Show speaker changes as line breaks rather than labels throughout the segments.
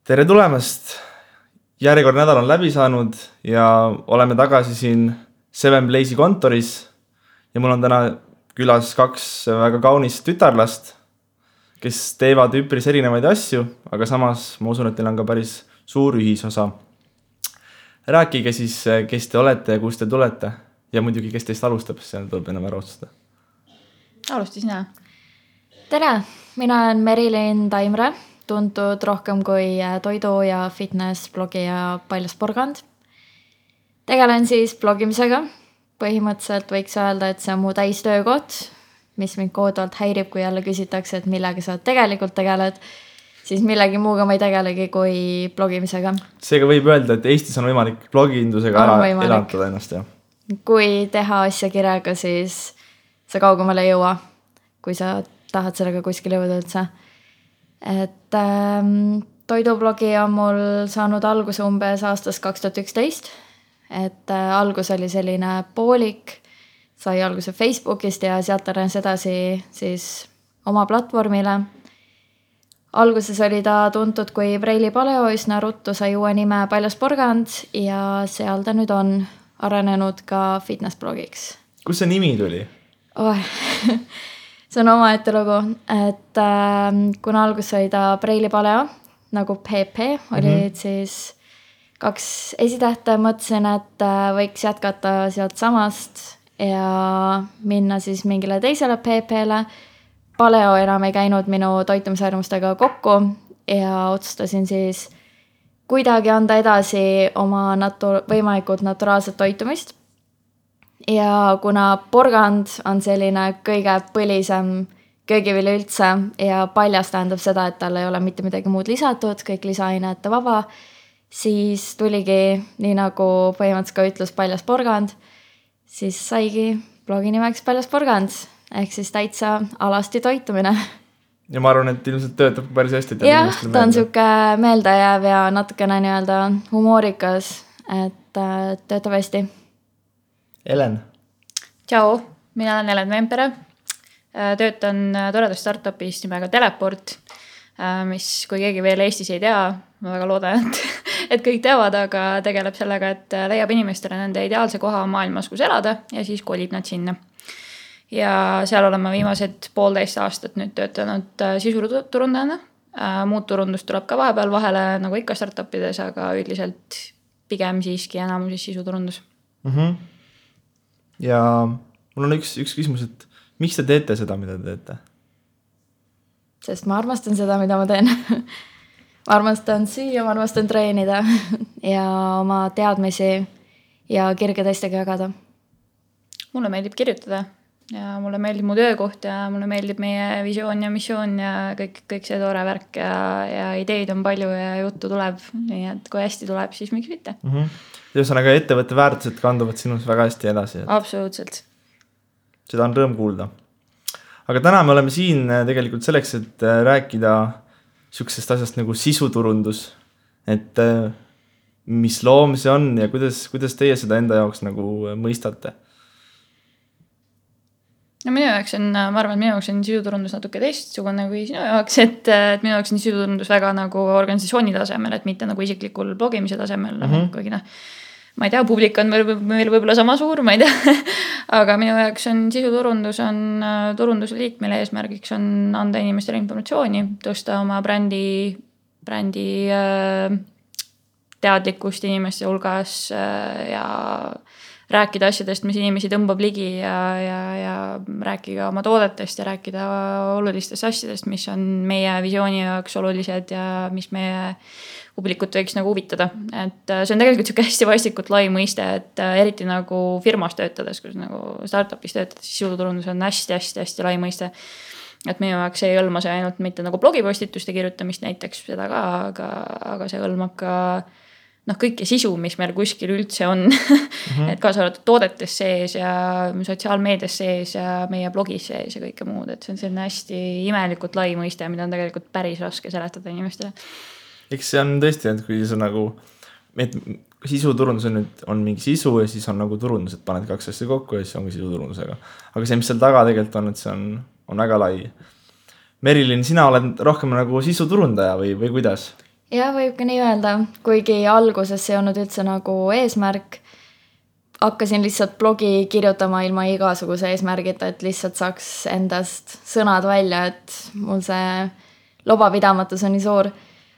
Tere tulemast! Järjekord nädal on läbi saanud ja oleme tagasi siin Seven Blaze'i kontoris ja mul on täna külas kaks väga kaunist tütarlast, kes teevad üpris erinevaid asju, aga samas ma usun, et teil on ka päris suur ühisosa. Rääkige siis, kes te olete ja kust te tulete ja muidugi, kes teist alustab, see tuleb enam ära otsustada.
Alusti sina.
Tere, mina olen Merilin Taimre, tuntud rohkem kui toidu- ja fitness-blogija Paljas Porgand. Tegelen siis blogimisega. Põhimõtteliselt võiks öelda, et see on mu täistöökoht, mis mind kohutavalt häirib, kui jälle küsitakse, et millega sa tegelikult tegeled, siis millegi muuga ma ei tegelegi kui blogimisega.
Seega võib öelda, et Eestis on võimalik blogindusega ära elatada ennast. Ja?
Kui teha asja kirjaga, siis sa kaugemale ei jõua, kui sa tahad sellega kuskil jõuda üldse. Et toidublogi on mul saanud alguse umbes aastast 2011. Et algus oli selline poolik, sai alguse Facebookist ja sealt arenes edasi siis oma platvormile. Alguses oli ta tuntud kui Preili Paleo, üsna ruttu sai uue nime Paljas Porgand ja seal ta nüüd on arenenud ka fitness-blogiks.
Kus see nimi tuli?
See on omaette lugu, et kuna algus oli ta Preili Paleo, nagu PP, olid siis kaks esitähte, mõtlesin, et võiks jätkata sealt samast ja minna siis mingile teisele PP-le. Paleo enam ei käinud minu toitumisharjumustega kokku ja otsustasin siis kuidagi anda edasi oma võimalikult naturaalset toitumist. Ja kuna porgand on selline kõige põlisem köögivili üldse ja paljas tähendab seda, et tal ei ole mitte midagi muud lisatud, kõik lisaainete vaba, siis tuligi, nii nagu põhimõtteliselt ka ütles Paljas Porgand, siis saigi blogi nimeks Paljas Porgand, ehk siis täitsa alasti toitumine.
Ja ma arvan, et ilmselt töötab päris hästi.
Jah, ta on siuke meeldejääv ja natukene nii-öelda humoorikas, et töötab hästi.
Elen.
Tšau, mina olen Elen Vempere. Töötan toredas startupis nimega Teleport, mis kui keegi veel Eestis ei tea, ma väga loodan, et kõik teavad, aga tegeleb sellega, et leiab inimestele nende ideaalse koha maailmas, kus elada ja siis kolib nad sinna. Ja seal olen ma viimased 1,5 aastat nüüd töötanud sisuturundajana. Muud turundust tuleb ka vahepeal vahele, nagu ikka startupides, aga üldiselt pigem siiski enamuses sisuturundus.
Ja mul on üks küsimus, et miks te teete seda, mida te teete?
Sest ma armastan seda, mida ma teen. Ma armastan süüa, ma armastan treenida ja oma teadmisi ja kirge teistega jagada.
Mulle meeldib kirjutada ja mulle meeldib mu töökoht ja mulle meeldib meie visioon ja missioon ja kõik see toore värk ja ideid on palju ja juttu tuleb. Nii et kui hästi tuleb, siis miks mitte.
Ühesõnaga ettevõtte väärtused kanduvad sinus väga hästi edasi.
Absoluutselt.
Seda on rõõm kuulda. Aga täna me oleme siin tegelikult selleks, et rääkida sihukesest asjast nagu sisuturundus. Et mis loom see on ja kuidas teie seda enda jaoks nagu mõistate?
No minu jaoks on, ma arvan, et minu jaoks on sisuturundus natuke teistsugune kui sinu jaoks, et minu jaoks on sisuturundus väga nagu organisatsiooni tasemel, et mitte nagu isiklikul blogimise tasemel. Kuigi ma ei tea, publik on meil võib-olla sama suur, ma ei tea. Aga minu jaoks on sisuturundus on turundusliik, mille eesmärgiks on anda inimestele informatsiooni, tõsta oma brändi teadlikkust inimeste hulgas ja rääkida asjadest, mis inimesi tõmbab ligi ja rääkida oma toodetest ja rääkida olulistest asjadest, mis on meie visiooni jaoks olulised ja mis meie publikut võiks nagu huvitada. Et see on tegelikult siuke hästi vastikult lai mõiste, et eriti nagu firmas töötades, kus nagu startupis töötades, siis sisuturundus on hästi lai mõiste. Et minu jaoks ei hõlma see ainult mitte nagu blogipostituste kirjutamist näiteks seda ka, aga see hõlmab ka kõike sisu, mis meil kuskil üldse on. Et kaasa arvatud toodetes sees ja sotsiaalmeedias sees ja meie blogis sees ja kõike muud. Et see on selline hästi imelikult lai mõiste, mida on tegelikult päris raske seletada inimestele.
Eks see on tõesti, et kui see nagu, et sisuturundus on mingi sisu ja siis on nagu turundus, et paned kaks asja kokku ja siis ongi sisuturundusega. Aga see, mis seal taga tegelikult on, et see on väga lai. Merilin, sina oled rohkem nagu sisuturundaja või kuidas?
ja võib ka nii öelda, kuigi alguses see ei olnud üldse nagu eesmärk. Hakkasin lihtsalt blogi kirjutama ilma igasuguse eesmärgita, et lihtsalt saaks endast sõnad välja, et mul see lobapidamatus on nii suur.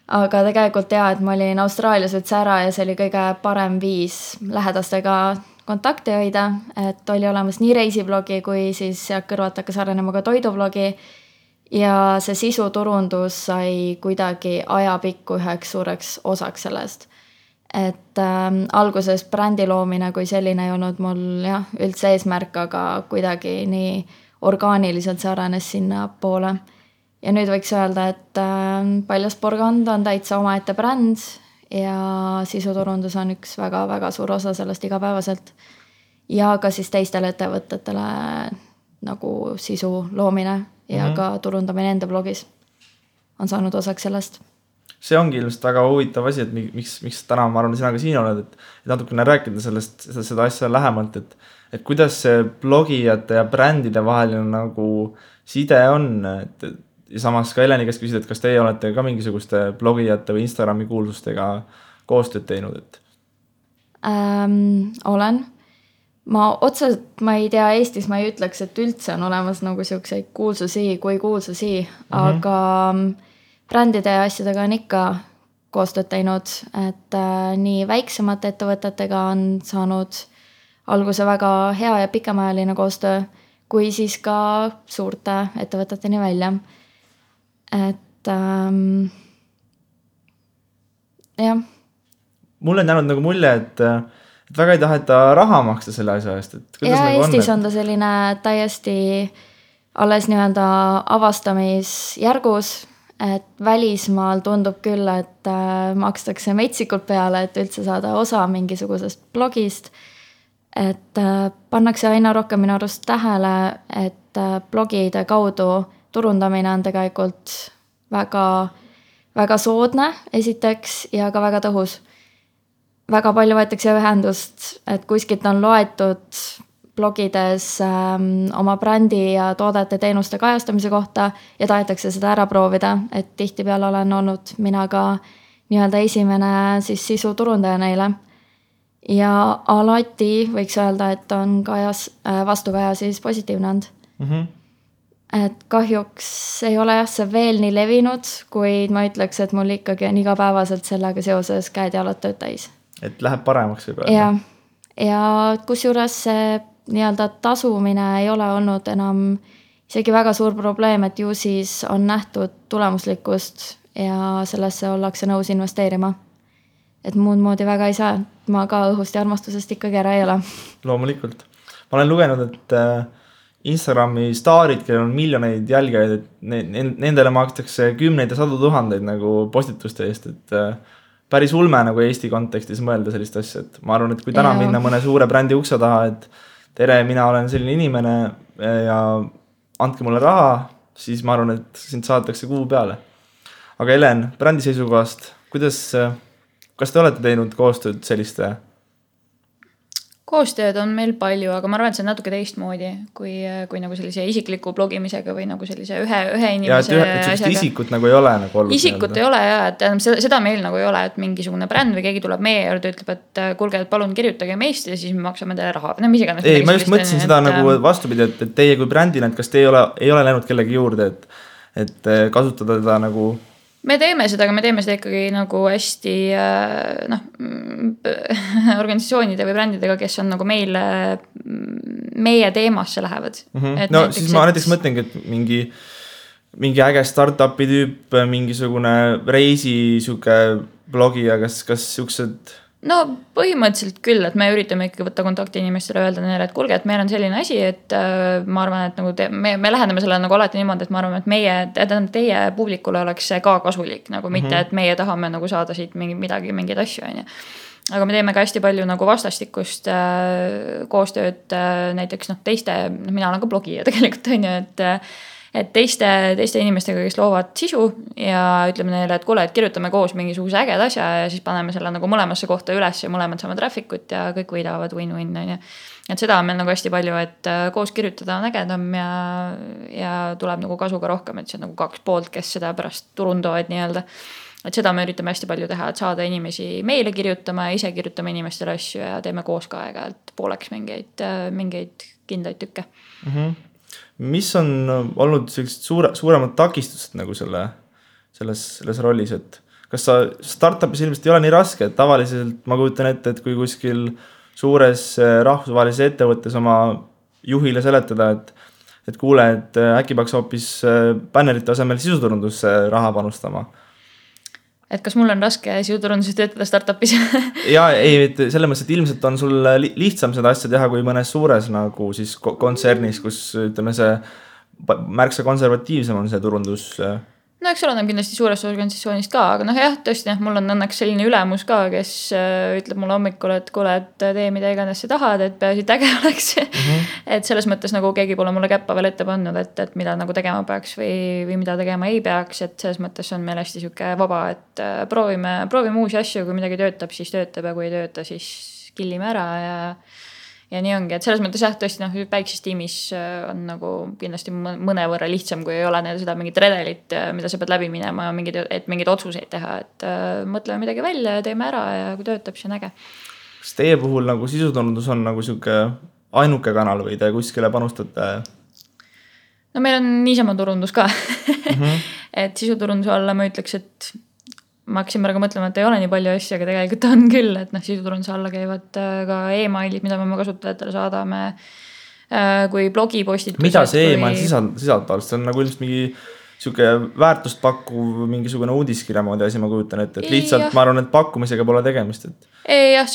Aga tegelikult et ma olin Austraalias üldse ära ja see oli kõige parem viis lähedastega kontakti hoida, et oli olemas nii reisiblogi kui siis sealt kõrvalt hakkas arenema ka toidublogi ja see sisuturundus sai kuidagi ajapikku üheks suureks osaks sellest. Et alguses brändi loomine kui selline ei olnud mul üldse eesmärk, aga kuidagi nii orgaaniliselt see arenes sinna poole. Ja nüüd võiks öelda, et Paljasporgand on täitsa omaette bränd ja sisuturundus on üks väga-väga suur osa sellest igapäevaselt. Ja ka siis teistele ettevõtetele nagu sisu loomine ja ka turundamine enda blogis on saanud osaks sellest.
See ongi ilmselt väga huvitav asi, et miks täna ma arvan, sina ka siin oled, et natukene rääkida seda asja lähemalt, et kuidas see blogijate ja brändide vaheline nagu side on, ja samas ka Eleni käest küsida, et kas teie olete ka mingisuguste blogijate või Instagrami kuulsustega koostööd teinud?
Olen. Ma ei tea, Eestis ma ei ütleks, et üldse on olemas nagu siukseid kuulsusi, aga brändide ja asjadega on ikka koostööd teinud, et nii väiksemate ettevõtetega on saanud alguse väga hea ja pikemajaline koostöö, kui siis ka suurte ettevõteteni välja. Et jah.
Mul on jäänud nagu mulje, et väga ei taheta raha maksta selle asja eest.
Ja nagu Eestis on ta selline täiesti alles nii-öelda avastamisjärgus, et välismaal tundub küll, et makstakse metsikult peale, et üldse saada osa mingisugusest blogist. Et pannakse aina rohkem minu arust tähele, et blogide kaudu turundamine on tegelikult väga, väga soodne esiteks ja ka väga tõhus. Väga palju võetakse ühendust, et kuskilt on loetud blogides oma brändi ja toodete teenuste kajastamise kohta ja tahetakse seda ära proovida, et tihtipeale olen olnud mina ka nii-öelda esimene siis sisuturundaja neile. Ja alati võiks öelda, et on vastukaja siis positiivne olnud. Et kahjuks ei ole see veel nii levinud, kuid ma ütleks, et mul ikkagi on igapäevaselt sellega seoses käed ja jalad tööd täis.
Et läheb paremaks võib öelda.
Ja kusjuures see nii-öelda tasumine ei ole olnud enam isegi väga suur probleem, et ju siis on nähtud tulemuslikkust ja sellesse ollakse nõus investeerima. Et muud moodi väga ei saa, ma ka õhust ja armastusest ikkagi ära ei ole.
Loomulikult. Ma olen lugenud, et Instagrami staarid, kellel on miljoneid jälgijaid, et nendele makstakse 10 ja 100 000 nagu postituste eest, et päris ulme nagu Eesti kontekstis mõelda sellist asja, et ma arvan, et kui täna minna mõne suure brändi ukse taha, et tere, mina olen selline inimene ja andke mulle raha, siis ma arvan, et sind saadetakse kuu peale. Aga Helen, brändi seisukohast, kas te olete teinud koostööd selliste?
Koostööd on meil palju, aga ma arvan, et see on natuke teistmoodi kui nagu sellise isikliku blogimisega või nagu sellise ühe inimese
asjaga. Isikut nagu ei ole nagu olnud.
Isikut ei ole et seda meil nagu ei ole, et mingisugune bränd või keegi tuleb meie juurde, ütleb, et kuulge, et palun kirjutage meist ja siis me maksame teile raha.
Ei, ma just mõtlesin seda nagu vastupidi, et teie kui brändina, et kas te ei ole läinud kellegi juurde, et kasutada teda nagu...
Me teeme seda ikkagi nagu hästi organisatsioonide või brändidega, kes on nagu meie teemasse lähevad.
No siis ma näiteks mõtlengi, et mingi äge startupi tüüp, mingisugune reisi blogija, kas siuksed...
No põhimõtteliselt küll, et me üritame ikkagi võtta kontakti inimestele, öelda neile, et kuulge, et meil on selline asi, et ma arvan, et nagu me läheneme selle nagu alati niimoodi, et ma arvan, et teie publikule oleks see ka kasulik, nagu mitte, et meie tahame nagu saada siit mingeid asju. Aga me teeme ka hästi palju nagu vastastikust koostööd näiteks teiste, mina olen ka blogija tegelikult, et teiste inimestega, kes loovad sisu ja ütleme neile, et kuule, et kirjutame koos mingisuguse äged asja ja siis paneme selle nagu mõlemasse kohta üles ja mõlemad saame trafficut ja kõik võidavad win-win. Et seda on meil nagu hästi palju, et koos kirjutada on ägedam ja tuleb nagu kasu ka rohkem, et see on nagu 2 poolt, kes seda pärast turundavad nii-öelda. et seda me üritame hästi palju teha, et saada inimesi meile kirjutama ja ise kirjutame inimestele asju ja teeme koos ka aeg-ajalt pooleks mingeid kindlaid tükke.
Mis on olnud sellised suuremad takistused nagu selles rollis, et kas sa startupis ilmselt ei ole nii raske, et tavaliselt ma kujutan ette, et kui kuskil suures rahvusvahelises ettevõttes oma juhile seletada, et kuule, et äkki peaks hoopis bännerite asemel sisuturundusse raha panustama.
Et kas mul on raske sisuturunduses töötada startupis?
ja ei, selles mõttes, et ilmselt on sul lihtsam seda asja teha kui mõnes suures nagu siis kontsernis, kus ütleme see märksa konservatiivsem on see turundus.
No eks oleneb kindlasti suurest organisatsioonist ka, aga jah, tõesti, mul on õnneks selline ülemus ka, kes ütleb mulle hommikul, et kuule, et tee mida iganes sa tahad, et peaasi äge oleks. Et selles mõttes nagu keegi pole mulle käppa veel ette pannud, et mida nagu tegema peaks või mida tegema ei peaks, et selles mõttes on meil hästi siuke vaba, et proovime uusi asju, kui midagi töötab, siis töötab ja kui ei tööta, siis killime ära ja nii ongi, et selles mõttes tõesti väikses tiimis on nagu kindlasti mõnevõrra lihtsam, kui ei ole seda mingit redelit, mida sa pead läbi minema ja mingeid otsuseid teha, et mõtleme midagi välja ja teeme ära ja kui töötab, siis on äge.
Kas teie puhul nagu sisuturundus on nagu siuke ainuke kanal või te kuskile panustate?
No meil on niisama turundus ka. Et sisuturunduse alla ma ütleks, et ma hakkasin praegu mõtlema, et ei ole nii palju asju, aga tegelikult on küll, et sisuturunduse alla käivad ka e-mailid, mida me kasutajatele saadame, kui blogipostitused.
Mida see e-mail sisaldab? See on nagu ilmselt mingi siuke väärtust pakkuv mingisugune uudiskirja moodi asi, ma kujutan ette, et lihtsalt ma arvan, et pakkumisega pole tegemist.
Ei, jah,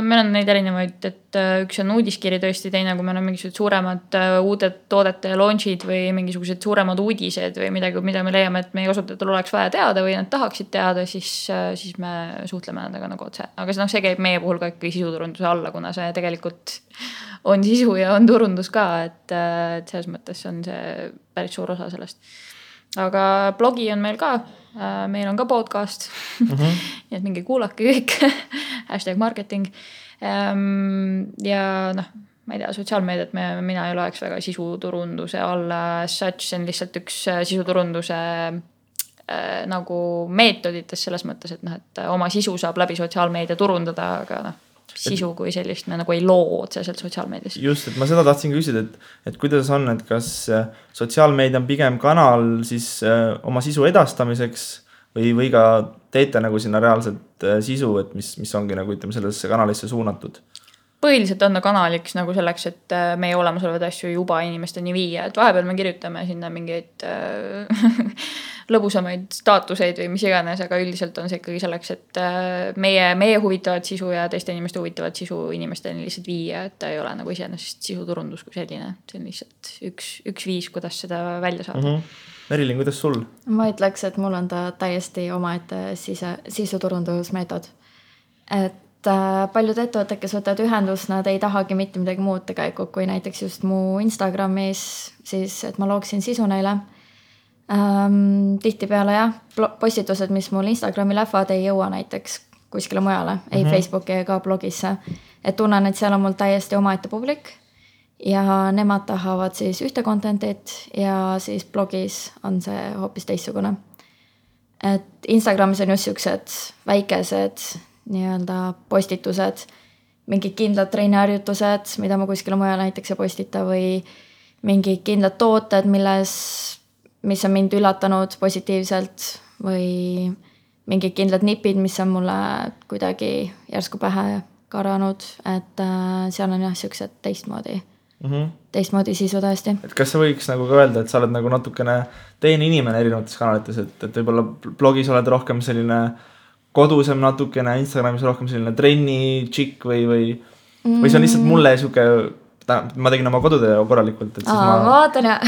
meil on neid erinevaid, et üks on uudiskiri tõesti, teine, kui meil on mingisugused suuremad uued toodete launchid või mingisugused suuremad uudised või midagi, mida me leiame, et meie kasutajatel oleks vaja teada või nad tahaksid teada, siis me suhtleme nendega nagu otse. Aga see käib meie puhul ka ikkagi sisuturunduse alla, kuna see tegelikult on sisu ja on turundus ka, et selles mõttes on see päris suur osa sellest. Aga blogi on meil ka, meil on ka podcast, nii et mingi kuulake kõik, #marketing ja ma ei tea, sotsiaalmeediat mina ei loeks väga sisuturunduse alla, see on lihtsalt üks sisuturunduse nagu meetodites selles mõttes, et oma sisu saab läbi sotsiaalmeedia turundada, aga sisu kui sellist me nagu ei loo otseselt sotsiaalmeedias.
Just, et ma seda tahtsin küsida, et kuidas on, et kas sotsiaalmeedia on pigem kanal siis oma sisu edastamiseks või ka teete nagu sinna reaalselt sisu, et mis ongi nagu ütleme sellesse kanalisse suunatud?
Põhiliselt on kanaliks nagu selleks, et meie olemasolevad asju juba inimesteni viia, et vahepeal me kirjutame sinna mingeid lõbusamaid staatuseid või mis iganes, aga üldiselt on see ikkagi selleks, et meie huvitavat sisu ja teiste inimeste huvitavat sisu inimesteni lihtsalt viia, et ta ei ole nagu iseenesest sisuturundus kui selline, see on lihtsalt üks viis, kuidas seda välja saada.
Merilin, kuidas sul?
Ma ütleks, et mul on ta täiesti omaette sisuturundusmeetod. Et paljud ettevõtted, kes võtavad ühendust, nad ei tahagi mitte midagi muud tegelikult, kui näiteks just mu Instagramis, siis et ma looksin sisu neile. Tihtipeale postitused, mis mul Instagrami lähevad, ei jõua näiteks kuskile mujale, ei Facebooki ega blogisse. Et tunnen, et seal on mul täiesti omaette publik ja nemad tahavad siis ühte contentit ja siis blogis on see hoopis teistsugune. Et Instagramis on just siuksed väikesed nii-öelda postitused, mingid kindlad treeniharjutused, mida ma kuskile mujal näiteks ei postita või mingid kindlad tooted, mis on mind üllatanud positiivselt või mingid kindlad nipid, mis on mulle kuidagi järsku pähe karanud, et seal on siuksed teistmoodi sisu tõesti.
Et kas sa võiks nagu ka öelda, et sa oled nagu natukene teine inimene erinevates kanalites, et võib-olla blogis oled rohkem selline kodusem natukene, Instagramis rohkem selline trenni tšikk või see on lihtsalt mulle siuke, ma tegin oma kodutöö korralikult, et siis
ma vaatan ja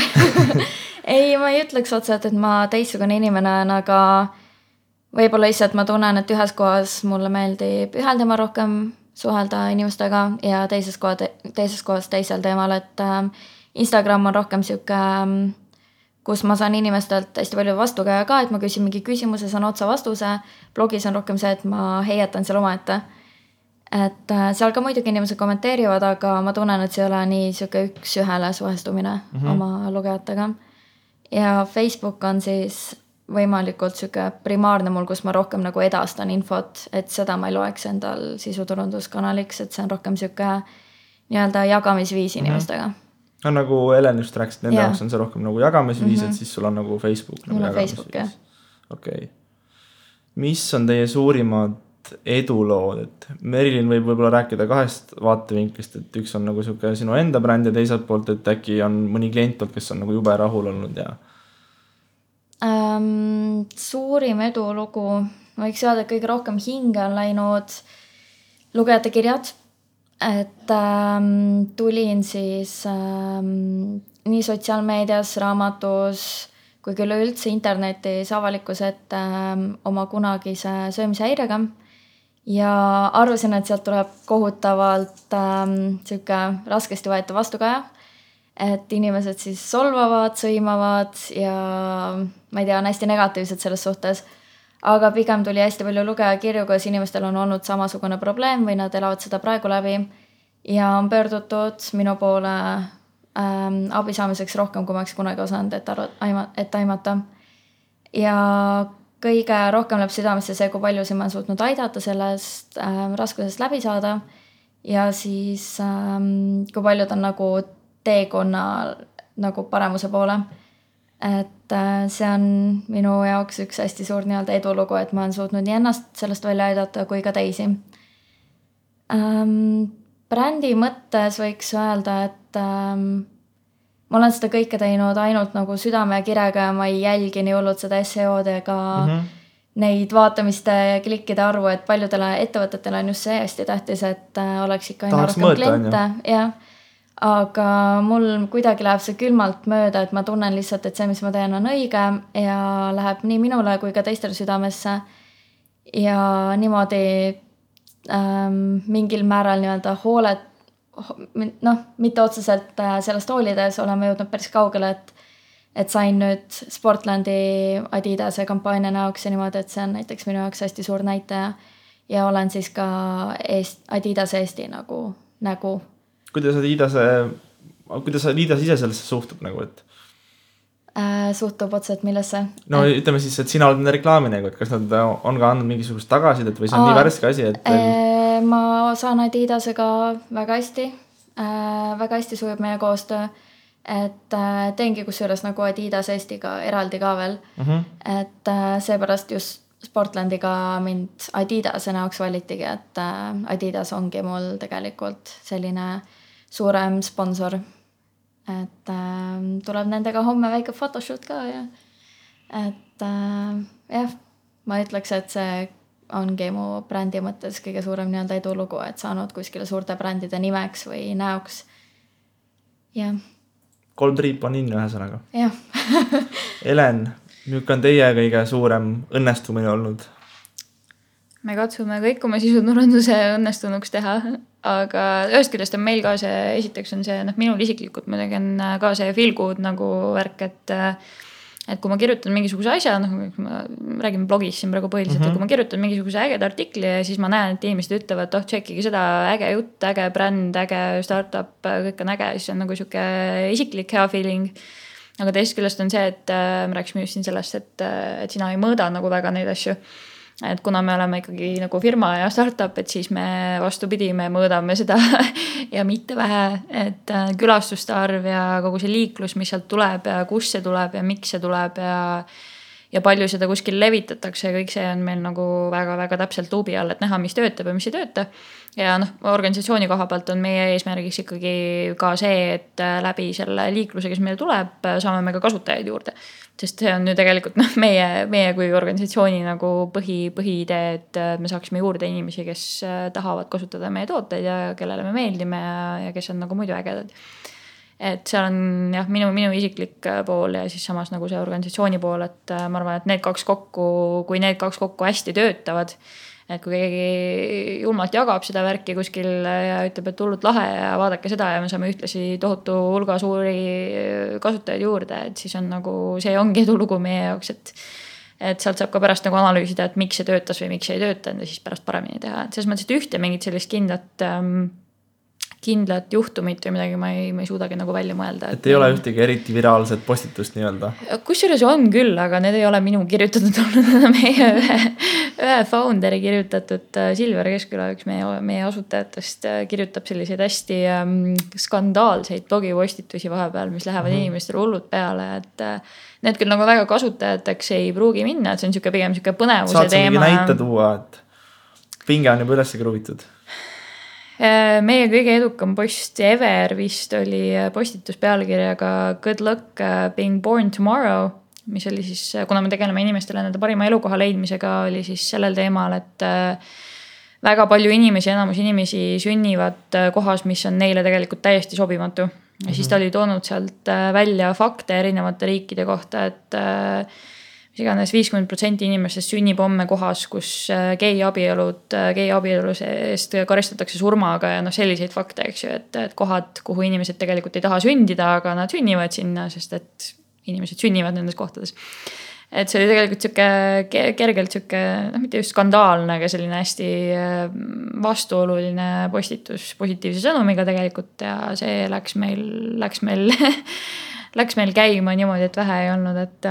ei, ma ei ütleks otseselt, et ma teistsugune inimene olen, aga võib-olla lihtsalt ma tunnen, et ühes kohas mulle meeldib ühel teemal rohkem suhelda inimestega ja teises kohas teisel teemal, et Instagram on rohkem siuke, kus ma saan inimestelt hästi palju vastukäia ka, et ma küsin mingi küsimuse, saan otsa vastuse. Blogis on rohkem see, et ma heietan seal omaette. Et seal ka muidugi inimesed kommenteerivad, aga ma tunnen, et see ei ole nii siuke üks ühele suhestumine oma lugejatega. Ja Facebook on siis võimalikult sihuke primaarne mul, kus ma rohkem nagu edastan infot, et seda ma ei loeks endal sisuturunduskanaliks, et see on rohkem sihuke nii-öelda jagamisviis inimestega.
No nagu Helen just rääkis, et nende jaoks on see rohkem nagu jagamisviis, et siis sul on nagu Facebook nagu jagamisviis. Okei. Mis on teie suurimad edulood, et Merilin võib võib-olla rääkida 2 vaatevinklist, et üks on nagu sihuke sinu enda bränd ja teiselt poolt, et äkki on mõni klient, kes on nagu jube rahul olnud ja
suurim edulugu, ma võiks öelda, et kõige rohkem hinge on läinud lugejate kirjad, et tulin siis nii sotsiaalmeedias, raamatus kui küll üldse internetis avalikkuse ette oma kunagise söömishäirega ja arvasin, et sealt tuleb kohutavalt sihuke raskesti võeta vastukaja, et inimesed siis solvavad, sõimavad ja ma ei tea, on hästi negatiivsed selles suhtes, aga pigem tuli hästi palju lugejakirju, kus inimestel on olnud samasugune probleem või nad elavad seda praegu läbi ja on pöördutud minu poole abi saamiseks rohkem, kui ma oleks kunagi osanud, et aimata. Ja kõige rohkem läheb südamesse see, kui paljusid ma olen suutnud aidata sellest raskusest läbi saada ja siis kui paljud on nagu teekonna nagu paremuse poole. Et see on minu jaoks üks hästi suur nii-öelda edulugu, et ma olen suutnud nii ennast sellest välja aidata kui ka teisi. Brändi mõttes võiks öelda, et ma olen seda kõike teinud ainult nagu südame ja kirega ja ma ei jälgi nii hullult seda SEO-d ega neid vaatamiste ja klikkide arvu, et paljudele ettevõtetele on just see hästi tähtis, et oleks ikka aina rohkem kliente. Ja. Aga mul kuidagi läheb see külmalt mööda, et ma tunnen lihtsalt, et see, mis ma teen, on õige ja läheb nii minule kui ka teistele südamesse ja niimoodi mingil määral nii-öelda hoolet, mitte otseselt sellest hoolides oleme jõudnud päris kaugele, et sain nüüd Sportlandi Adidase kampaania näoks ja niimoodi, et see on näiteks minu jaoks hästi suur näitaja ja olen siis ka Adidase Eesti nägu.
Kuidas Adidas ise sellesse suhtub nagu, et?
Suhtub otseselt millesse?
No ütleme siis, et sina oled nende reklaaminegu, et kas nad on ka andnud mingisugust tagasidet või see on nii värske asi, et
ma saan Adidasega väga hästi sujub meie koostöö, et teengi kusjuures nagu Adidas Eestiga eraldi ka veel, et seepärast just Sportlandiga mind Adidase näoks valitigi, et Adidas ongi mul tegelikult selline suurem sponsor, et tuleb nendega homme väike photoshoot ka ja et jah, ma ütleks, et see ongi mu brändi mõttes kõige suurem nii-öelda edulugu, et saanud kuskile suurte brändide nimeks või näoks. Jah.
3 triip on inne ühesõnaga.
Jah.
Helen, milline on teie kõige suurem õnnestumine olnud?
Me katsume kõik oma sisuturunduse õnnestunuks teha, aga ühest küljest on meil ka see, esiteks on see, minul isiklikult muidugi on ka see feel good nagu värk, et kui ma kirjutan mingisuguse asja, ma räägin blogis siin praegu põhiliselt, et kui ma kirjutan mingisuguse ägeda artikli ja siis ma näen, et inimesed ütlevad, tšekkige seda äge jutt, äge bränd, äge startup, kõik on äge, siis on nagu siuke isiklik hea feeling. Aga teisest küljest on see, et me rääksime just siin sellest, et sina ei mõõda nagu väga neid asju. Et kuna me oleme ikkagi nagu firma ja startup, et siis me vastupidi, me mõõdame seda ja mitte vähe, et külastuste arv ja kogu see liiklus, mis sealt tuleb ja kus see tuleb ja miks see tuleb ja palju seda kuskil levitatakse ja kõik see on meil nagu väga-väga täpselt luubi all, et näha, mis töötab ja mis ei tööta. Ja organisatsiooni koha pealt on meie eesmärgiks ikkagi ka see, et läbi selle liikluse, kes meile tuleb, saame me ka kasutajaid juurde. Sest see on ju tegelikult meie kui organisatsiooni nagu põhiidee, et me saaksime juurde inimesi, kes tahavad kasutada meie tooteid ja kellele me meeldime ja kes on nagu muidu ägedad. Et seal on jah, minu isiklik pool ja siis samas nagu see organisatsiooni pool, et ma arvan, et kui need kaks kokku hästi töötavad, et kui keegi julmalt jagab seda värki kuskil ja ütleb, et hullult lahe ja vaadake seda ja me saame ühtlasi tohutu hulga suuri kasutajaid juurde, et siis on nagu, see ongi edulugu meie jaoks, et sealt saab ka pärast nagu analüüsida, et miks see töötas või miks see ei töötanud ja siis pärast paremini teha. Et selles mõttes, et ühte mingit sellist kindlat juhtumit või midagi ma ei suudagi nagu välja mõelda.
Et ei ole ühtegi eriti viraalset postitust nii-öelda?
Kusjuures on küll, aga need ei ole minu kirjutatud olnud, meie ühe founderi kirjutatud Silver Keskküla, üks meie asutajatest kirjutab selliseid hästi skandaalseid blogipostitusi vahepeal, mis lähevad inimestele hullud peale, et need küll nagu väga kasutajateks ei pruugi minna, et see on pigem põnevuse
teema. Saad sa mingi näite tuua, et pinge on juba üles kruvitud?
Meie kõige edukam post ever vist oli postitus pealkirjaga Good luck being born tomorrow, mis oli siis, kuna me tegeleme inimestele nende parima elukoha leidmisega, oli siis sellel teemal, et väga palju inimesi, enamus inimesi sünnivad kohas, mis on neile tegelikult täiesti sobimatu. Ja siis ta oli toonud sealt välja fakte erinevate riikide kohta, et mis iganes 50% inimestest sünnib homme kohas, kus gei abielus eest karistatakse surmaga ja selliseid fakte, eks ju, et kohad, kuhu inimesed tegelikult ei taha sündida, aga nad sünnivad sinna, sest et inimesed sünnivad nendes kohtades. Et see oli tegelikult kergelt mitte just skandaalne, aga selline hästi vastuoluline postitus positiivse sõnumiga tegelikult ja see läks meil käima niimoodi, et vähe ei olnud, et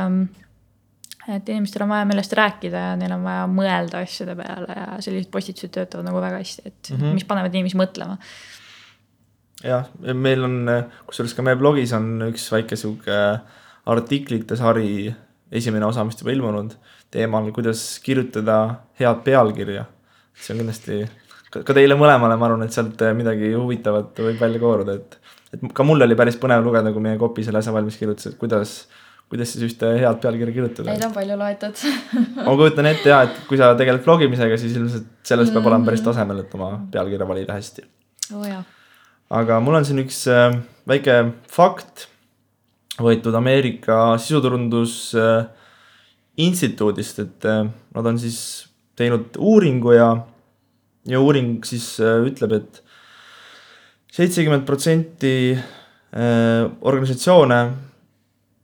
inimestel on vaja millest rääkida ja neil on vaja mõelda asjade peale ja sellised postitused töötavad nagu väga hästi, et mis panevad inimesi mõtlema.
Jah, meil on, kusjuures ka meie blogis on üks väike siuke artiklite sari esimene osa, mis juba ilmunud teemal, kuidas kirjutada head pealkirja. See on kindlasti ka teile mõlemale, ma arvan, et sealt midagi huvitavat võib välja kooruda, et ka mul oli päris põnev lugeda, kui meie kopi selle asja valmis kirjutas, et kuidas siis ühte head pealkirja kirjutada.
Neid on palju loetud.
Ma kujutan ette et kui sa tegeled blogimisega, siis ilmselt sellest peab olema päris tasemel, et oma pealkirja valida hästi.
Jah.
Aga mul on siin üks väike fakt võetud Ameerika sisuturundus instituudist, et nad on siis teinud uuringu ja uuring siis ütleb, et 70% organisatsioone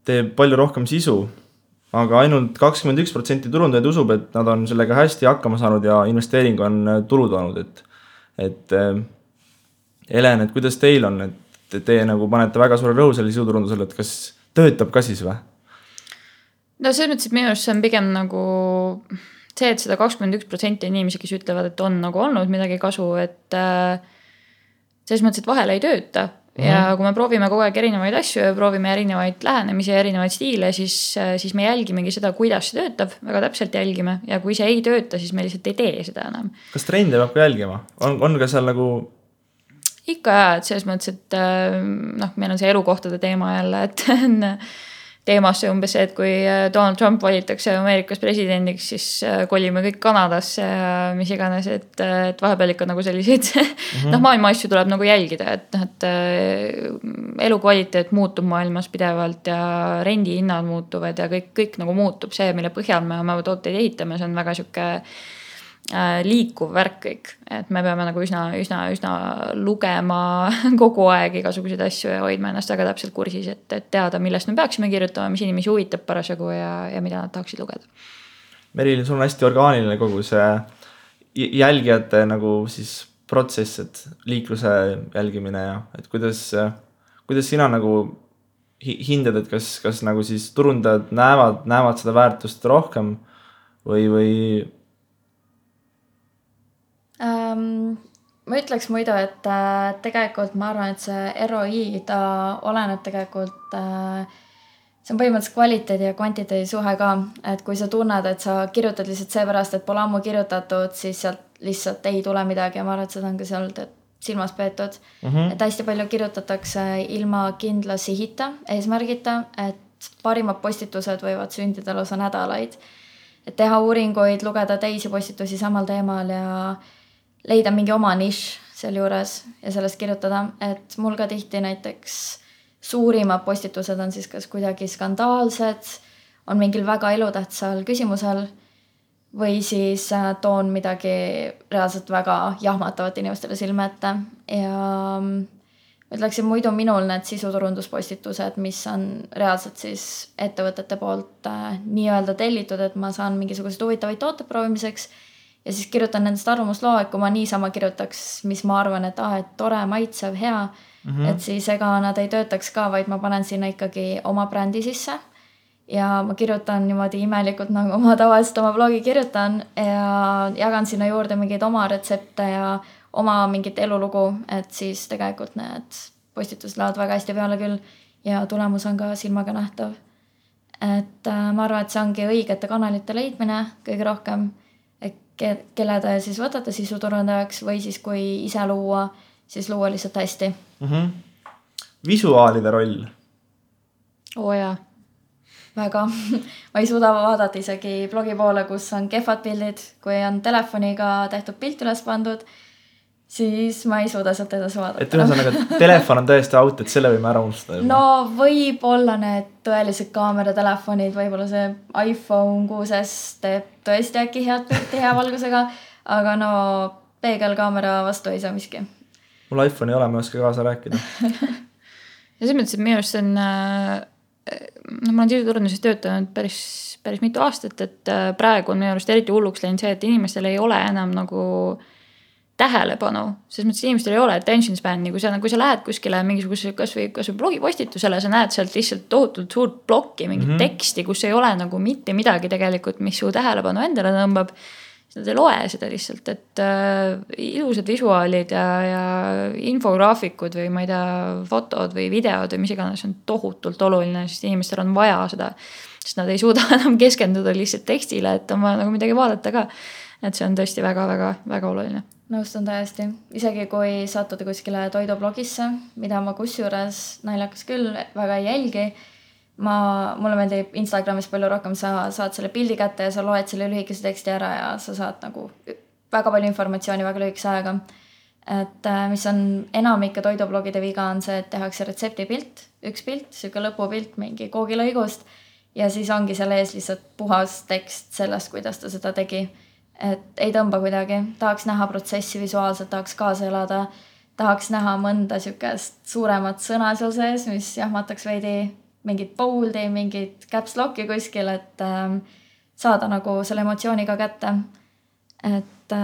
teeb palju rohkem sisu, aga ainult 21% turundajaid usub, et nad on sellega hästi hakkama saanud ja investeering on tulu toonud, et Helen, et kuidas teil on, et te nagu panete väga suure rõhu selle sisuturundusele, et kas töötab ka siis või?
No selles mõttes, et minu arust see on pigem nagu see, et seda 21% inimesi, kes ütlevad, et on nagu olnud midagi kasu, et selles mõttes, et vahel ei tööta. Ja kui me proovime kogu aeg erinevaid asju ja proovime erinevaid lähenemisi ja erinevaid stiile, siis me jälgimegi seda, kuidas see töötab, väga täpselt jälgime. Ja kui see ei tööta, siis me lihtsalt ei tee seda enam.
Kas trende peab ka jälgima? On ka seal nagu...
Ikka jah, et selles mõttes, et meil on see elukohtade teema jälle, et teemasse umbes see, et kui Donald Trump valitakse Ameerikas presidendiks, siis kolime kõik Kanadasse ja mis iganes, et vahepeal ikka nagu selliseid maailma asju tuleb nagu jälgida, et elukvaliteet muutub maailmas pidevalt ja rendihinnad muutuvad ja kõik nagu muutub see, mille põhjal me oma tooteid ehitame, see on väga siuke liikuv värk kõik, et me peame nagu üsna lugema kogu aeg igasuguseid asju ja hoidma ennast väga täpselt kursis, et teada, millest me peaksime kirjutama, mis inimesi huvitab parasjagu ja mida nad tahaksid lugeda.
Meril, sul on hästi orgaaniline kogu see jälgijate nagu siis protsess, et liikluse jälgimine ja et kuidas sina nagu hindad, et kas nagu siis turundajad näevad seda väärtust rohkem või
ma ütleks muidu, et tegelikult ma arvan, et see ROI ta oleneb tegelikult, see on põhimõtteliselt kvaliteedi ja kvantiteedi suhe ka, et kui sa tunned, et sa kirjutad lihtsalt seepärast, et pole ammu kirjutatud, siis sealt lihtsalt ei tule midagi ja ma arvan, et seda on ka seal silmas peetud, et hästi palju kirjutatakse ilma kindla sihita, eesmärgita, et parimad postitused võivad sündida lausa nädalaid, et teha uuringuid, lugeda teisi postitusi samal teemal ja leida mingi oma nišš seal juures ja sellest kirjutada, et mul ka tihti näiteks suurimad postitused on siis kas kuidagi skandaalsed, on mingil väga elutähtsal küsimusel või siis toon midagi reaalselt väga jahmatavat inimestele silme ette ja ütleksin muidu minul need sisuturunduspostitused, mis on reaalselt siis ettevõtete poolt nii-öelda tellitud, et ma saan mingisuguseid huvitavaid tooted proovimiseks ja siis kirjutan nendest arvamusloo, et kui ma niisama kirjutaks, mis ma arvan, et et tore, maitsev, hea, et siis ega nad ei töötaks ka, vaid ma panen sinna ikkagi oma brändi sisse ja ma kirjutan niimoodi imelikult, nagu ma tavaliselt oma blogi kirjutan ja jagan sinna juurde mingeid oma retsepte ja oma mingit elulugu, et siis tegelikult need postitused lähevad väga hästi peale küll ja tulemus on ka silmaga nähtav. Et ma arvan, et see ongi õigete kanalite leidmine kõige rohkem, et kelle te siis võtate sisuturundajaks või siis kui ise luua, siis luua lihtsalt hästi.
Visuaalide roll.
Jaa.
Väga. Ma ei suuda vaadata isegi blogi poole, kus on kehvad pildid, kui on telefoniga tehtud pilt üles pandud, siis ma ei suuda sealt edasi vaadata.
Et ühesõnaga, telefon on tõesti out, et selle võime ära unustada.
No võib-olla need tõelised kaameratelefonid, võib-olla see iPhone 6S teeb tõesti äkki head pilti hea valgusega, aga no peegelkaamera vastu ei saa miski.
Mul iPhone ei ole, ma ei oska kaasa rääkida.
Ja selles mõttes, et minu arust on, ma olen sisuturunduses töötanud päris mitu aastat, et praegu on minu arust eriti hulluks läinud see, et inimestel ei ole enam nagu tähelepanu, selles mõttes inimestel ei ole attention span'i, kui sa lähed kuskile mingisuguse kas või blogipostitusele, sa näed sealt lihtsalt tohutult suurt blokki, mingit teksti, kus ei ole nagu mitte midagi tegelikult, mis su tähelepanu endale tõmbab, siis nad ei loe seda lihtsalt, et ilusad visuaalid ja infograafikud või ma ei tea, fotod või videod või mis iganes on tohutult oluline, sest inimestel on vaja seda, sest nad ei suuda enam keskenduda lihtsalt tekstile, et on vaja nagu midagi vaadata ka, et see on tõesti väga oluline.
Nõustun täiesti. Isegi kui sattuda kuskile toidublogisse, mida ma kusjuures naljakas küll väga ei jälgi, mulle meeldib Instagramis palju rohkem, sa saad selle pildi kätte ja sa loed selle lühikese teksti ära ja sa saad nagu väga palju informatsiooni väga lühikese ajaga. Et mis on enamike toidublogide viga on see, et tehakse retseptipilt, üks pilt, siuke lõpupilt mingi koogilõigust ja siis ongi selle ees lihtsalt puhas tekst sellest, kuidas ta seda tegi. Et ei tõmba kuidagi, tahaks näha protsessi visuaalselt, tahaks kaasa elada, tahaks näha mõnda siukest suuremat sõna seal sees, mis jahmataks veidi mingit boldi, mingit caps lock'i kuskil, et saada nagu selle emotsiooniga kätte. Et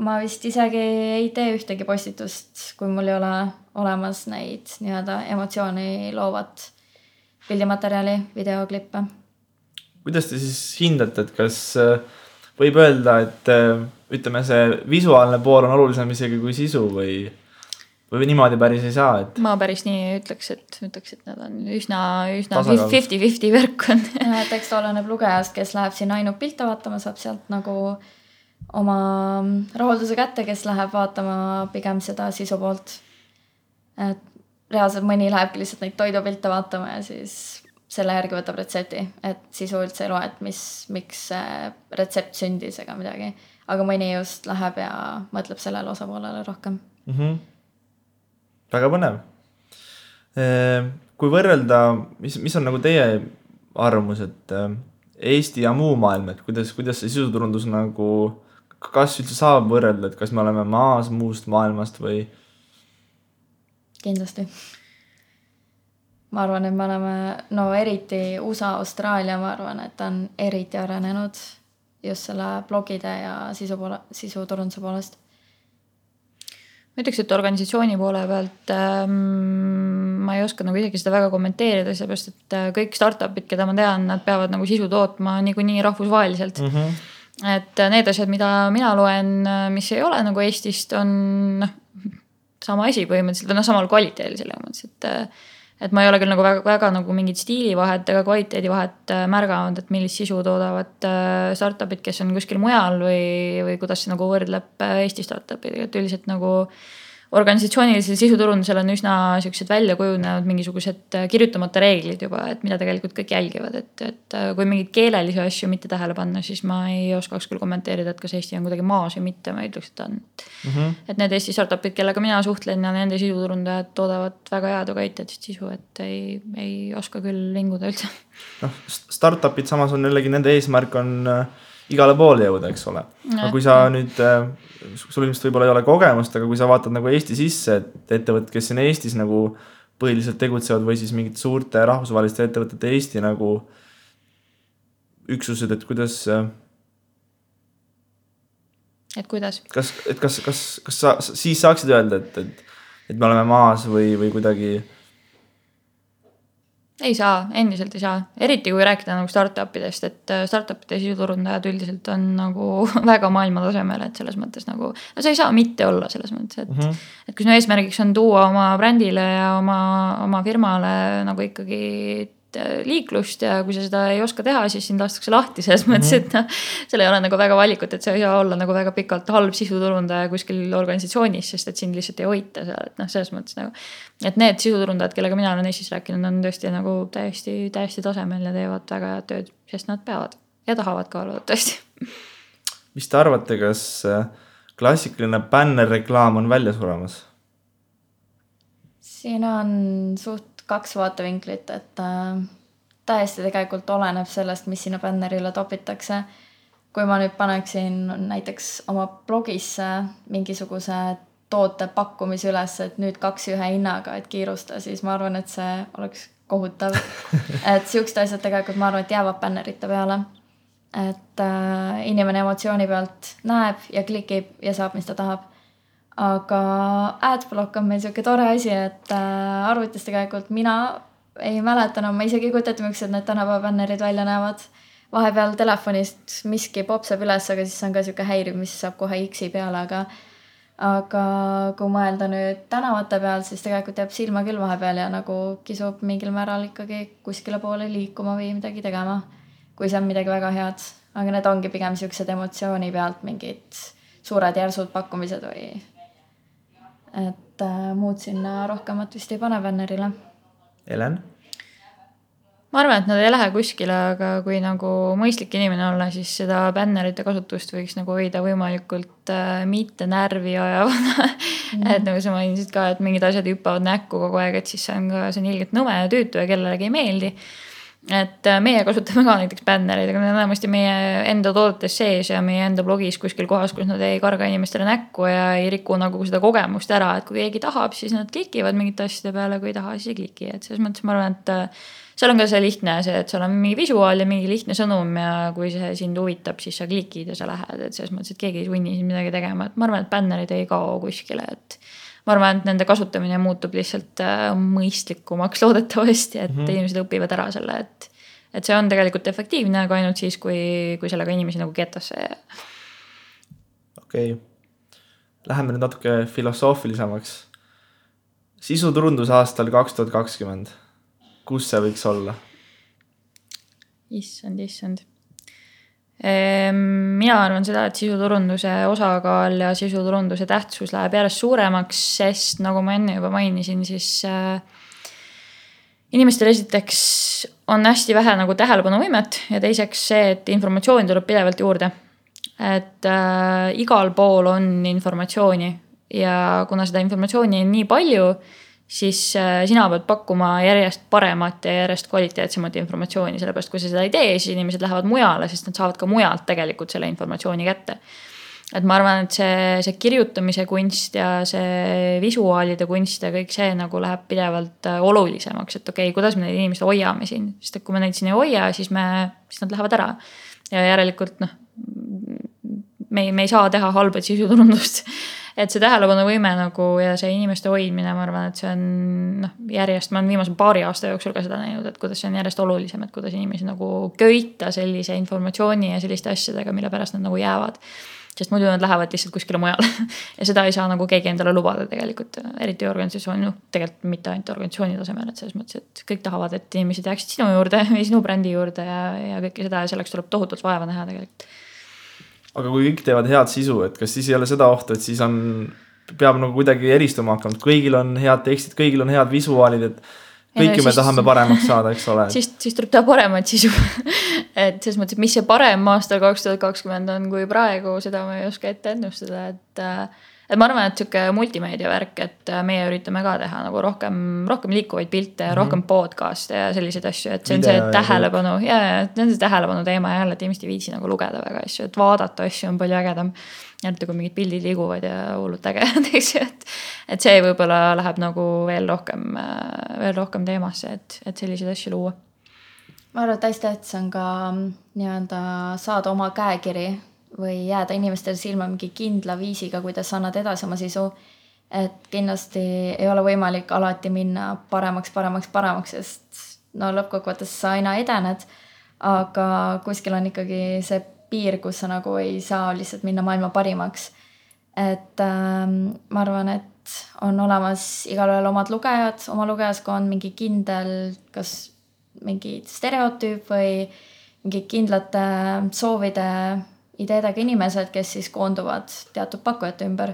ma vist isegi ei tee ühtegi postitust, kui mul ei ole olemas neid nii-öelda emotsiooni loovat pildimaterjali, videoklippe.
Kuidas te siis hindate, et kas võib öelda, et ütleme, see visuaalne pool on olulisem isegi kui sisu või niimoodi päris ei saa? Et...
Ma päris nii ütleks, et nad on üsna 50-50 värk on.
Tekst oleneb lugejast, kes läheb sinna ainult pilte vaatama, saab sealt nagu oma rahulduse kätte, kes läheb vaatama pigem seda sisu poolt. Et reaalselt mõni lähebki lihtsalt neid toidupilte vaatama ja siis selle järgi võtab retsepti, et sisu üldse ei loe, et miks see retsept sündis ega midagi. Aga mõni just läheb ja mõtleb sellele osapoolele rohkem.
Väga põnev. Kui võrrelda, mis on nagu teie arvamus, et Eesti ja muu maailm, et kuidas see sisuturundus nagu, kas üldse saab võrrelda, et kas me oleme maas muust maailmast või?
Kindlasti. Ma arvan, et me oleme, eriti USA, Austraalia, ma arvan, et on eriti arenenud just selle blogide ja sisuturunduse poolest.
Ma ütleks, et organisatsiooni poole pealt ma ei oska nagu isegi seda väga kommenteerida, seepärast, et kõik startupid, keda ma tean, nad peavad nagu sisu tootma niikuinii rahvusvaheliselt. Et need asjad, mida mina loen, mis ei ole nagu Eestist, on sama asi põhimõtteliselt, või samal kvaliteedil selle mõttes, et ma ei ole küll nagu väga nagu mingit stiilivahet ega kvaliteedivahet märganud, et millist sisu toodavad startupid, kes on kuskil mujal või kuidas see nagu võrdleb Eesti startupid, et üldiselt nagu organisatsioonilisel sisuturundusel on üsna sellised välja kujunenud mingisugused kirjutamata reeglid juba, et mida tegelikult kõik jälgivad, et kui mingid keelelisi asju mitte tähele panna, siis ma ei oskaks küll kommenteerida, et kas Eesti on kuidagi maas või mitte, ma ütleks, et on. Et need Eesti startupid, kellega mina suhtlen ja nende sisuturundajad toodavad väga head ja kvaliteetset sisu, et ei oska küll vinguda üldse.
Startupid samas on jällegi, nende eesmärk on igale poole jõuda, eks ole. Aga kui sa nüüd, sul ilmselt võib-olla ei ole kogemust, aga kui sa vaatad nagu Eesti sisse, et ettevõtted, kes siin Eestis nagu põhiliselt tegutsevad või siis mingid suurte rahvusvaheliste ettevõtete Eesti nagu üksused, et kuidas
et kuidas?
Kas sa siis saaksid öelda, et me oleme maas või kuidagi?
Ei saa, endiselt ei saa. Eriti kui rääkida nagu startupidest, et startupide sisuturundajad üldiselt on nagu väga maailma tasemel, et selles mõttes nagu, no sa ei saa mitte olla selles mõttes, et kui sinu eesmärgiks on tuua oma brändile ja oma firmale nagu ikkagi liiklust ja kui sa seda ei oska teha, siis sind lastakse lahti selles mõttes, et noh, seal ei ole nagu väga valikut, et sa ei saa olla nagu väga pikalt halb sisuturundaja kuskil organisatsioonis, sest et sind lihtsalt ei hoita seal, et noh, selles mõttes nagu, et need sisuturundajad, kellega mina olen Eestis rääkinud, on tõesti nagu täiesti tasemel ja teevad väga head tööd, sest nad peavad ja tahavad ka olla tõesti.
Mis te arvate, kas klassikaline bännerreklaam on välja suremas?
Siin on suht 2 vaatevinklit, et täiesti tegelikult oleneb sellest, mis sinna bännerile topitakse. Kui ma nüüd paneksin näiteks oma blogisse mingisuguse toote pakkumise üles, et nüüd 2 ühe hinnaga, et kiirusta, siis ma arvan, et see oleks kohutav. Et siuksed asjad tegelikult ma arvan, et jäävad bännerite peale. Et inimene emotsiooni pealt näeb ja klikib ja saab, mis ta tahab. Aga adblock on meil siuke tore asi, et arvutis tegelikult mina ei mäletanud, ma isegi ei kujutata, miks need tänapäeva bännerid välja näevad. Vahepeal telefonist miski popsab üles, aga siis on ka siuke häiriv, mis saab kohe X-i peale, aga kui mõelda nüüd tänavate peal, siis tegelikult jääb silma küll vahepeal ja nagu kisub mingil määral ikkagi kuskile poole liikuma või midagi tegema, kui see on midagi väga head. Aga need ongi pigem siuksed emotsiooni pealt mingid suured järsud pakkumised või et muud sinna rohkemat vist ei pane bännerile.
Helen?
Ma arvan, et nad ei lähe kuskile, aga kui nagu mõistlik inimene olla, siis seda bännerite kasutust võiks nagu hoida võimalikult mitte närvi ajavana. Et nagu sa mainisid ka, et mingid asjad hüppavad näkku kogu aeg, et siis see on ilgelt nõme ja tüütu ja kellelegi ei meeldi. Et meie kasutame ka näiteks bännereid, aga need on enamasti meie enda toodetes sees ja meie enda blogis kuskil kohas, kus nad ei karga inimestele näkku ja ei riku nagu seda kogemust ära, et kui keegi tahab, siis nad klikivad mingite asjade peale, kui ei taha, siis ei kliki. Et selles mõttes ma arvan, et seal on ka see lihtne see, et seal on mingi visuaal ja mingi lihtne sõnum ja kui see sind huvitab, siis sa klikid ja sa lähed, et selles mõttes, et keegi ei sunni siin midagi tegema, et ma arvan, et bännerid ei kao kuskile, et ma arvan, et nende kasutamine muutub lihtsalt mõistlikumaks loodetavasti, et inimesed õpivad ära selle, et see on tegelikult efektiivne, aga ainult siis, kui sellega inimesi nagu ketasse.
Okei. Läheme nüüd natuke filosoofilisemaks. Sisuturundus aastal 2020. Kus see võiks olla?
Issand. Mina arvan seda, et sisuturunduse osakaal ja sisuturunduse tähtsus läheb järjest suuremaks, sest nagu ma enne juba mainisin, siis inimestel esiteks on hästi vähe nagu tähelepanuvõimet ja teiseks see, et informatsiooni tuleb pidevalt juurde. Et igal pool on informatsiooni ja kuna seda informatsiooni on nii palju, siis sina pead pakkuma järjest paremat ja järjest kvaliteetsemat informatsiooni, sellepärast kui sa seda ei tee, siis inimesed lähevad mujale, sest nad saavad ka mujalt tegelikult selle informatsiooni kätte. Et ma arvan, et see kirjutamise kunst ja see visuaalide kunst ja kõik see nagu läheb pidevalt olulisemaks, et okei, kuidas me neid inimesed hoiame siin, sest et kui me neid siin ei hoia, siis nad lähevad ära ja järelikult me ei saa teha halbad sisuturundust. Et see tähelepanuvõime nagu ja see inimeste hoidmine, ma arvan, et see on järjest, ma olen viimase 2 aasta jooksul ka seda näinud, et kuidas see on järjest olulisem, et kuidas inimesi nagu köita sellise informatsiooni ja selliste asjadega, mille pärast nad nagu jäävad. Sest muidu nad lähevad lihtsalt kuskile mujale ja seda ei saa nagu keegi endale lubada tegelikult, eriti organisatsiooni, tegelikult mitte ainult organisatsiooni tasemel, et selles mõttes, et kõik tahavad, et inimesed jääksid sinu juurde või sinu brändi juurde ja kõike seda ja selleks tuleb tohutult vaeva näha tegelikult.
Aga kui kõik teevad head sisu, et kas siis ei ole seda ohtu, et siis peab nagu kuidagi eristuma hakkama, et kõigil on head tekstid, kõigil on head visuaalid, et kõiki me tahame paremaks saada, eks ole.
Siis tuleb teha paremat sisu. Et selles mõttes, mis see parem aastal 2020 on kui praegu, seda ma ei oska ette ennustada, et ma arvan, et siuke multimeedia värk, et meie üritame ka teha nagu rohkem liikuvaid pilte ja rohkem podcast'e ja selliseid asju, et see on see tähelepanu ja see on see tähelepanu teema ja jälle, et inimesed ei viitsi nagu lugeda väga asju, et vaadata asju on palju ägedam. Jälle, kui mingid pildid liiguvad ja hullult ägedad, et see võib-olla läheb nagu veel rohkem teemasse, et selliseid asju luua.
Ma arvan, et hästi tähtis on ka saada oma käekiri või jääda inimestele silma mingi kindla viisiga, kuidas annad edasi oma sisu. Et kindlasti ei ole võimalik alati minna paremaks, sest no lõppkokkuvõttes sa aina edened, aga kuskil on ikkagi see piir, kus sa nagu ei saa lihtsalt minna maailma parimaks. Et ma arvan, et on olemas igalühel omad lugejad, oma lugejaskond, mingi kindel, kas mingi stereotüüp või mingi kindlate soovide, ideedega inimesed, kes siis koonduvad teatud pakkujate ümber,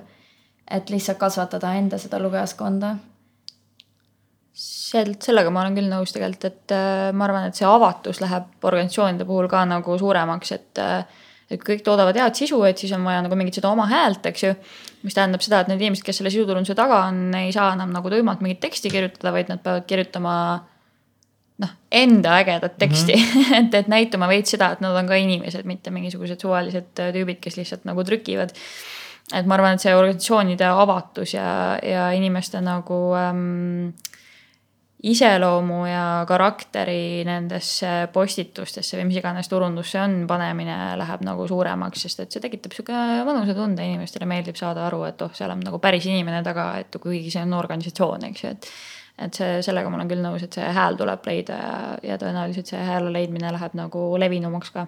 et lihtsalt kasvatada enda seda lugejaskonda.
Sellega ma olen küll nõus tegelikult, et ma arvan, et see avatus läheb organisatsioonide puhul ka nagu suuremaks, et kõik toodavad head sisu, et siis on vaja nagu mingit seda oma häält, eks ju, mis tähendab seda, et need inimesed, kes selle sisuturunduse taga on, ei saa enam nagu tuimalt mingit teksti kirjutada, vaid nad peavad kirjutama enda ägedat teksti, et näitama veits seda, et nad on ka inimesed, mitte mingisugused suvalised tüübid, kes lihtsalt nagu trükivad. Et ma arvan, et see organisatsioonide avatus ja inimeste nagu iseloomu ja karakteri nendesse postitustesse või mis iganes turundusse on panemine läheb nagu suuremaks, sest et see tekitab siuke mõnusa tunde, inimestele meeldib saada aru, et seal on nagu päris inimene taga, et kuigi see on organisatsioon, eks ju, et sellega ma olen küll nõus, et see hääl tuleb leida ja tõenäoliselt see hääle leidmine läheb nagu levinumaks ka.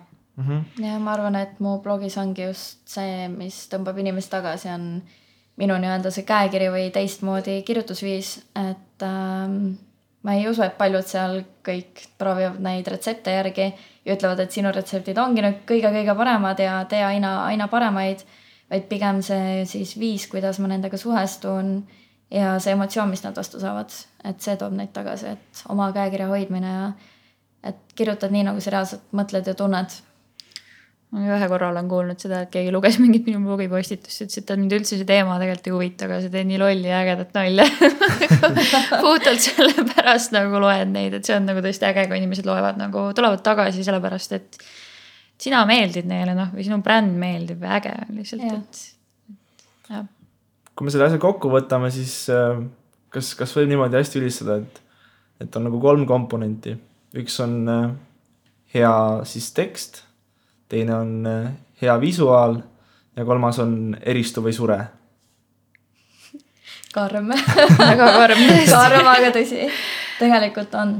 Ja ma arvan, et mu blogis ongi just see, mis tõmbab inimest tagasi, on minu nii-öelda see käekiri või teistmoodi kirjutusviis, et ma ei usu, et paljud seal kõik proovivad neid retsepte järgi ja ütlevad, et sinu retseptid ongi nüüd kõige paremad ja tee aina paremaid, vaid pigem see siis viis, kuidas ma nendega suhestun ja see emotsioon, mis nad vastu saavad, et see toob neid tagasi, et oma käekirja hoidmine ja et kirjutad nii, nagu sa reaalselt mõtled ja tunned.
Ma ühe korra olen kuulnud seda, et keegi luges mingit minu blogipostitust, ütles, et mind üldse see teema tegelikult ei huvita, aga see teeb nii lolli ja ägedat nalja. Puhtalt selle pärast nagu loed neid, et see on nagu tõesti äge, kui inimesed loevad nagu, tulevad tagasi sellepärast, et sina meeldid neile, või sinu bränd meeldib ja äge lihtsalt, et jah.
Kui me selle asja kokku võtame, siis kas võib niimoodi hästi ülistada, et on nagu 3 komponenti. Üks on hea siis tekst, teine on hea visuaal ja 3 on eristu või sure.
Karm.
Väga karm.
Karm, aga tõsi. Tegelikult on.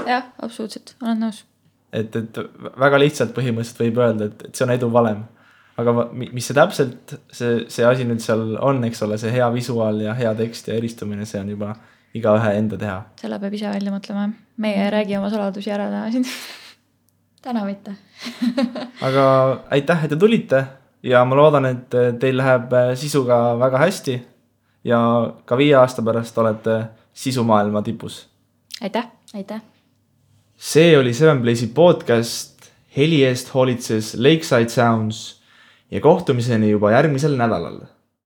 Jah, absoluutselt. Olen nõus.
Et väga lihtsalt põhimõtteliselt võib öelda, et see on edu valem. Aga mis see täpselt, see asi nüüd seal on, eks ole, see hea visuaal ja hea tekst ja eristumine, see on juba igaühe enda teha.
Selle peab ise välja mõtlema. Meie räägi oma saladusi ära täna siin.
Täna mitte.
Aga aitäh, et te tulite ja ma loodan, et teil läheb sisuga väga hästi ja ka 5 aasta pärast olete sisumaailma tipus.
Aitäh.
Aitäh.
See oli 7Blaze'i podcast, heli eest hoolitses Lakeside Sounds ja kohtumiseni juba järgmisel nädalal.